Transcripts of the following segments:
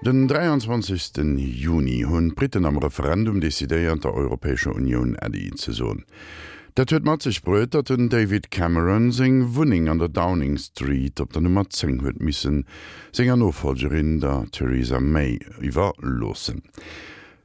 Den 23 Juni hunn d'Britten am Referendum decidéiert, der Europäescher Unioun Äddi ze soen. Dat huet mat sech bruet, datt den David Cameron seng Wunneng an der Downing Street op der Nummer 10 huet missen senger Nofollgerin, der Theresa May, iwwerloossen.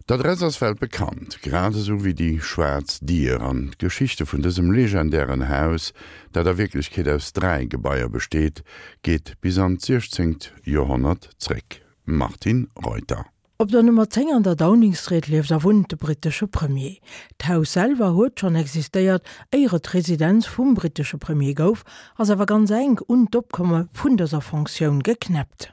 D'Adress ass weltbekannt, grad esou wéi déi schwaarz Dier an d'Geschichte vun dësem legendären Haus, dat a Wierklechkeet aus 3 Gebaier besteet, geet bis an d'siechzéngt Joerhonnert zréck. Martine Reuter. Op der Nummer 10 an der Downing Street lieft a wunnt de brittesche Premier. D'Haus selwer huet schonn existéiert, éier et d'Residenz vum brittesche Premier gouf, ass awer ganz enk un d'Opkomme vun dëser Fonctioun geknäppt.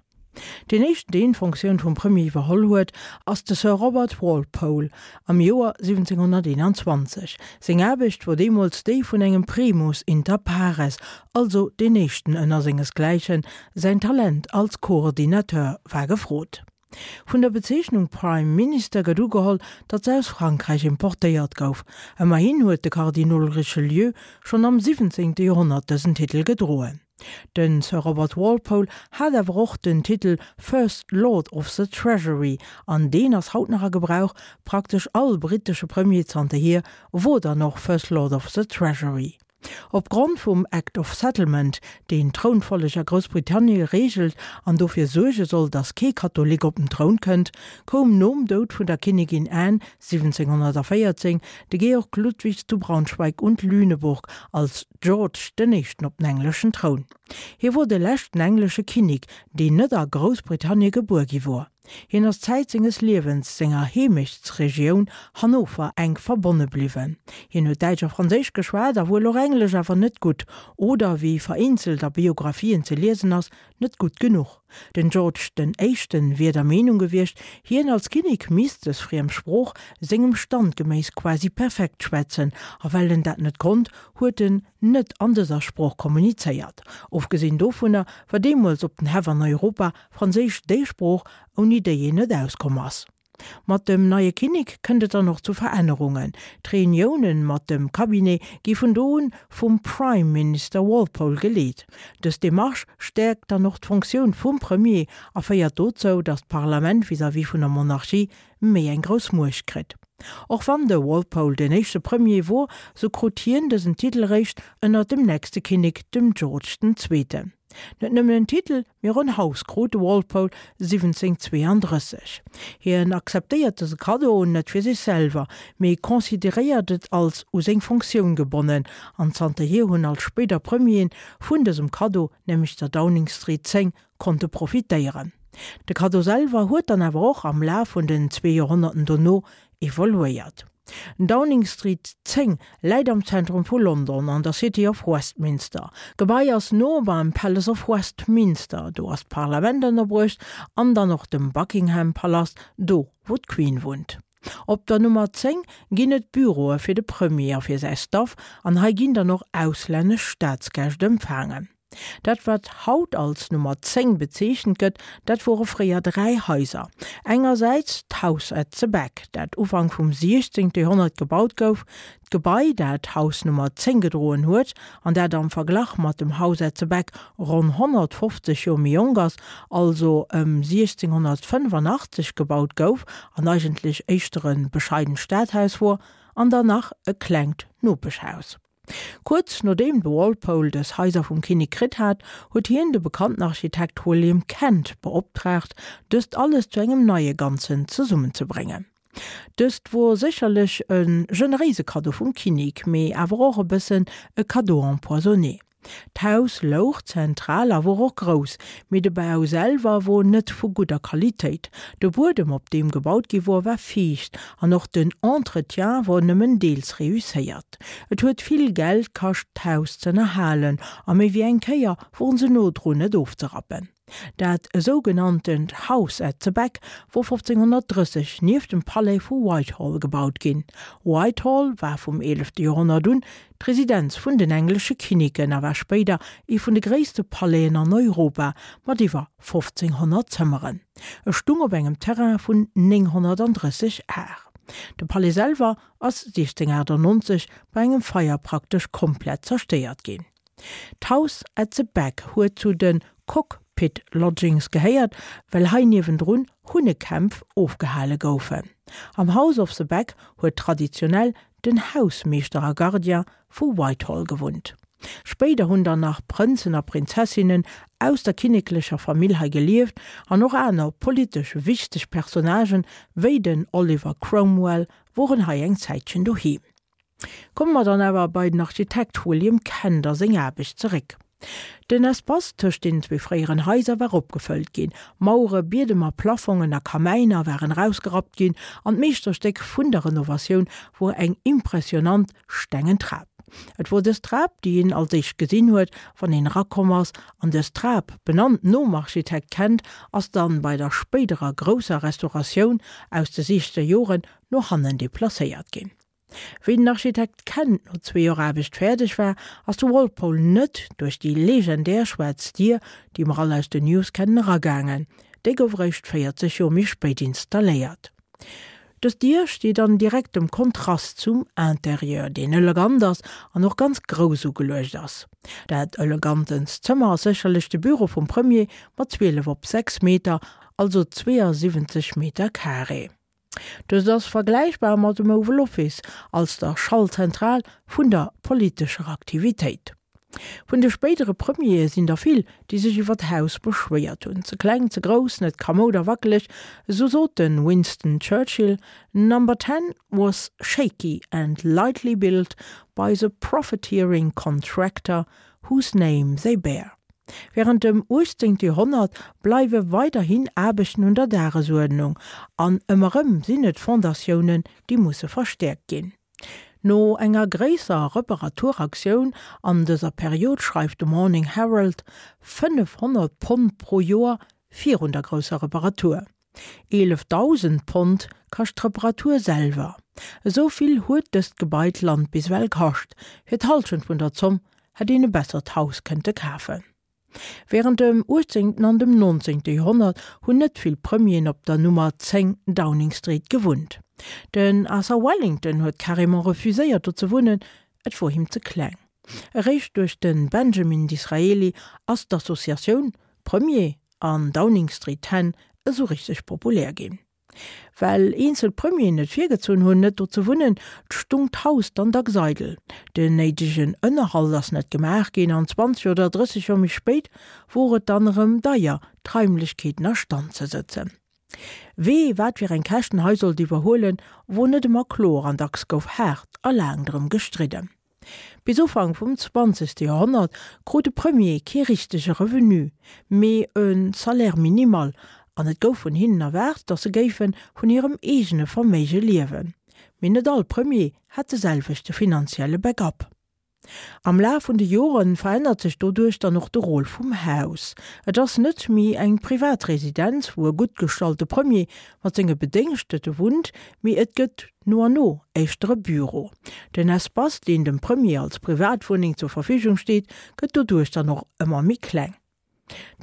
Deen éischten deen d'Fonctioun vum Premier iwwerholl huet, ass de Sir Robert Walpole am Joer 1721. Seng Aarbecht wor deemools déi vun engem Primus inter pares, also deen éischten ënner sengesgläichen, säin Talent als Coordinateur war gefrot. Vun der Bezeechnung Prime Minister gëtt ugeholl, datt se aus Frankräich importéiert gouf. Ëmmerhin huet de Kardinol Richelieu schonn am 17. Joerhonnert dësen Titel gedroen. De Sir Robert Walpole hat awer och den Titel First Lord of the Treasury, an deen ass haut nach a Gebrauch, praktesch all brittesche Premier zanterhier wor dann och First Lord of the Treasury. Op Grond vum Act of Settlement, deen d'Trounfolleg a Groussbritannie reegelt an dofir suerge soll, datt kee Katholik op den Troun kënnt, koum nom Doud vun der Kinnigin Anne 1714 de Georg Ludwig zu Braunschweig und Lüneburg als George den Éischten op den engleschen Troun. Hie wor de leschten englesche Kinnek, deen net a Groussbritannie gebuer gi wor. Hien ass Zäit senges Liewens senger Heemechtsregioun Hannover enk verbonne bliwwen. Hien huet Däitsch a Franséisch geschwat a wuel och Englesch, awer net gutt, oder wéi vereenzelt a Biographien ze liesen ass, net gutt genuch. Den George den Éischten wier der Meenung gewiescht, hien als Kinnek misst dës friem Sprooch sengem Stand geméiss quasi perfekt schwätzen, a well en dat net konnt, huet en net an dëser Sprooch kommunizéiert. Ofgesinn dovunner war deemools op den Häff an Europa Franséisch déi Sprooch, ouni déi een net auskomm ass. Mat dem neie Kinnek kënnt et dann och zu Verännerungen. D'Reuniounen mat dem Cabinet gi vun do un vum Prime Minister Walpole geleet. Dës Demarche stäerkt dann och d'Fonctioun vum Premier a féiert dozou, datt d'Parlament vis-à-vis vun der Monarchie méi eng grouss Muecht kritt. Och wann de Walpole den éischte Premier wor, sou krut hien dësen Titel réischt ënner dem nächste Kinnek, dem George den Zweeten. Net nëmmen en Titel, mee och en Haus krut de Walpole 1732. Hien akzeptéiert dëse Kaddo net fir sech selwer, mee consideréiert et als u seng Fonctioun gebonnen, an zanterhier hunn all spéider Premieren vun dësem Kaddo, nämlech der Downing Street 10, konnte profitéieren. De Kaddo selwer huet dann awer och am Laf vun den zwee Joerhonnerten dono evoluéiert. Downing Street 10 läit am Zentrum vu London an der City of Westminster. D'Gebai ass no beim Palace of Westminster, do ass d'Parlament ënnerbruecht, an dann och dem Buckingham Palast, do wou d'Queen wunnt. Op der Nummer 10 ginn et Büroe fir de Premier a fir säi Staff an hei ginn dann och auslännesch Staatsgäscht empfaangen. Dat wat haut als Nummer 10 bezeechent gëtt, dat wore fréier 3 Haiser. Engersäits d'House at the Back, dat Ufank vum 16. Joerhonnert gebaut gouf, d'Gebai dat Haus Nummer 10 gedroen huet an dat am Verglach mat dem House at the Back ronn 150 Joer méi jonk ass, also ëm 1685 gebaut gouf an eigentlech éischter e bescheident Stadhaus wor, an dann nach e klengt Nopeschhaus. Kuerz nodeem de Walpole dës Haiser vum Kinnek kritt hat, huet hien de bekannten Architekt William Kent beoptraagt, dëst alles zu engem neie Ganzen zesummenzebréngen. Dëst wor sécherlech e generéise Kaddo vum Kinnek, mee awer och e bëssen e Cadeau empoisonné. D'Haus louch zentral a wor och grouss, mee de Bau selwer wor net vu gudder Qualitéit. De Buedem op deem gebaut gi wor war fiicht an och den Entretien wor nëmmen deels reusséiert. Et huet vill Geld kascht d'Haus z'ënnerhalen a méi wéi eng Kéier woren se no drun et ofzerappen. Dat esougenanntent House at the Back wor 1530 nieft dem Palais vu Whitehall gebaut ginn. Whitehall war vum eelefte Joerhonnert un d'Residenz vun den englesche Kinneken a war spéider ee vun de gréisste Palaisen an Europa mat iwwer 1.500 Zëmmeren. E stung op engem Terrain vun 930 Ar. De Palais selwer ass 1698 bei engem Feier praktesch komplett zerstéiert ginn. D'House at the Back huet zu de Cock. Pit Lodgings gehéiert, well hei niewendrun Hunnekämpf ofgehale goufen. Am House of the Beck huet traditionell den Hausmeeschter a Gardien vu Whitehall gewunnt. Spéider hunn dann nach Prënzen a Prinzessinnen aus der kinneklecher Famill hei gelieft an och aner politesch wichteg Personnagen, wéi den Oliver Cromwell, woren hei eng Zäitchen doheem. Komme mer dann awer bei den Architekt William Kent a seng Aarbecht zeréck. Den Espace tëscht deenen zwee fréieren Haiser war opgefëllt ginn, Mauere, Biedemer, Plaffongen a Kamäiner waren erausgerappt ginn an d'Meeschterstéck vun der Renovatioun wor eng impressionant stengen Trap. Et wor dës Trap, déi een als éischt gesinn huet, wann een erakomm ass, an dës Trap, benannt nom Architekt Kent, ass dann bei der spéiderer grousser Restauratioun aus de siechzeger Joren no hannen deplacéiert ginn. Wéi den Architekt Kent no zwee Joer Aarbecht fäerdeg war, ass de Walpole net duerch déi legendär schwaarz Dier, déi mer all aus den News kennen, eragaangen. Déi gouf eréischt 40 Joer méi spéit installéiert. Dës Dier steet an direktem Kontrast zum Interieur, deen elegant ass an och ganz grouss ugeluecht ass. Dat elegantenst Zëmmer ass sécherlech de Büro vum Premier mat 12 op 6 Meter, also 72 Meter carré. Dëst ass vergläichbar mat dem Oval Office als der Schaltzentral vun der politescher Aktivitéit. Vun de spéidere Premiere sinn der vill, déi sech iwwer d'Haus beschwéiert hunn, ze kleng, ze grouss, net kamoud a wackeleg. Esou sot de Winston Churchill, Number Ten was shaky and lightly built by the profiteering contractor whose name they bear. Wärend dem 18. Joerhonnert bleiwe weiderhin Aarbechten un der Dagesuerdnung, an ëmmer erëm sinn et Fondatiounen, déi musse verstäerkt ginn. No enger gréisser Reparaturaktioun an dëser Period schreift de Morning Herald, 500 Pond pro Joer virun der grousser Reparatur. 11.000 Pond kascht d'Reparatur selwer. Esou vill huet dëst Gebai d'Land bis ewell kascht. Fir d'Hallschent vun der Zomm hätt een e bessert Haus kënnte kafen. Wärend dem uechtzéngten an dem nonzéngte Joerhonnert hunn net vill Premieren op der Nummer 10 Downing Street gewunnt. Den Arthur Wellington huet carrément refuséiert do ze wunnen, et wor him ze kleng. Eréischt duerch de Benjamin Disraeli ass d'Associatioun Premier an Downing Street 10 esou richteg populär ginn. Well eenzel Premieren et virgezunn hunn, net do ze wunnen, stung d'Haus dann dacks eidel. Den néidegen Ënnerhalt ass net gemaach ginn an 20 oder 30 Joer méi spéit wor et dann erëm deier, d'Raimlechkeeten a Stand ze sëtzen. Wee wat fir eng Käschten hei sollt iwwerhuelen, wor net ëmmer kloer an dacks gouf haart a laang drëm gestridden. Bis Ufank vum zwanzegste Joerhonnert krut de Premier kee richtege Revenu, mee e Salaire minimal, an et gouf vun hinnen erwaart, datt se géife vun hirem eegene Verméige liewen. Mee net all Premier hat de selwechte finanzielle Backup. Am Laf vun de Jore verännert sech doduerch dann och de Rôle vum Haus. Et ass net méi eng privat Residenz, wou e gutt gestallte Premier mat senge Bedéngschtete wunnt, mee et gëtt no an no éischter e Büro. Den Espace, deen dem Premier als Privatwunneng zur Verfügung steet, gëtt doduerch dann och ëmmer méi kleng.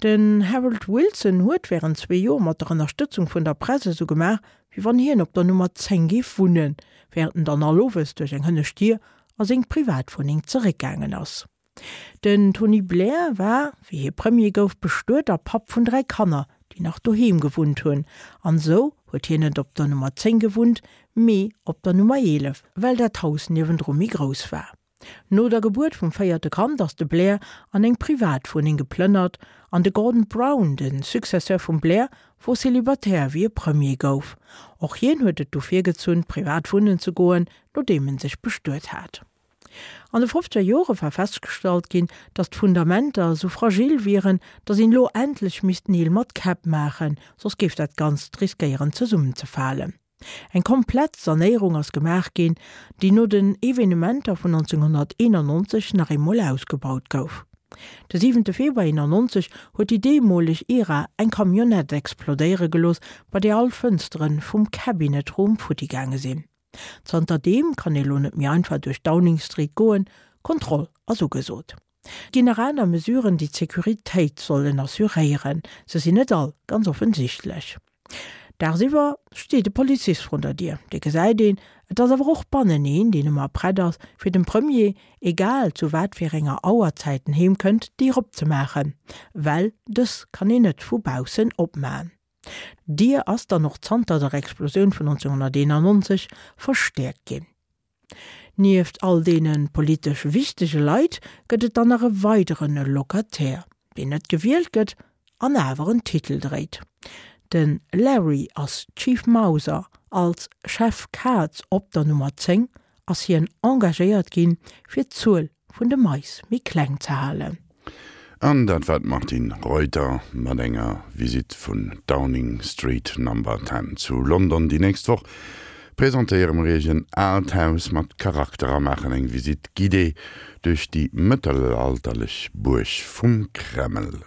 Den Harold Wilson huet wärend zwee Joer mat der Ënnerstëtzung vun der Press esou gemaach, wéi wann hien op der Nummer 10 géif wunnen, wärend en dann all Owes duerch eng hënnescht Dier a seng Privatwunneng zeréckgaangen ass. Den Tony Blair war, wéi hie Premier gouf, bestuet a Papp vun 3 Kanner, déi nach doheem gewunnt hunn. An esou huet hien net op der Nummer 10 gewunnt, mee op der Nummer 11, well dat Haus niewendru méi grouss war. No der Gebuert vum véierte Kand ass de Blair an eng Privatwunneng geplënnert an de Gordon Brown, de Successeur vum Blair, wor Célibataire wéi e Premier gouf. Och hien huet et du virgezunn, privat wunnen ze goen, nodeem en sech bestuet hat. An de fofzeger Jore war festgestallt ginn, datt d'Fundamenter esou fragil wieren, datt een elo endlech misst Neel mat Käpp maachen, soss géif dat Ganzt riskéieren zesummenzefalen. Eng komplett Sanéierung ass gemaach ginn, déi no den Evenementer vun 1991 nach eemol ausgebaut gouf. De siwente Februar 91 huet déi deemoleg IRA eng Camionnette explodéiere gelooss, bei där all Fënstere vum Cabinet Room futti gaange sinn. Zanter deem kann ee lo net méi einfach duerch Downing Street goen, Kontroll ass ugesot. Et ginn nach aner Mesuren, déi d'Securitéit sollen assuréieren. Se sinn net all ganz offensichtlech. Dagsiwwer steet e Polizist vrun der Dier, dee gesäit een, et ass awer och bannen een, deen ëmmer prett ass, fir dem Premier, egal zu wat fir enger Auerzäit en heem kënnt, d'Dier opzemaachen, well dës kann een net vu baussen opmaen. D'Dier ass dann och zanter der Explosioun vun 1991 verstäerkt ginn. Nieft all deene politesch wichtege Leit gëtt et dann nach e weidere Locataire, deen net gewielt gëtt an awer en Titel dréit. De Larry ass Chief Mouser. Als Chef Kaz op der Nummer 10 ass hien engagéiert ginn, fir d'Zuel vun de Mais méi kleng ze halen. An dat war d'Martine Reuter mat enger Visitt vun Downing Street Number 10 zu London. Déi nächst Woch presentéiere mer Iech en aalt Haus mat Charakter a maachen eng Visite guidée duerch déi mëttelalterlech Buerg vum Kreml.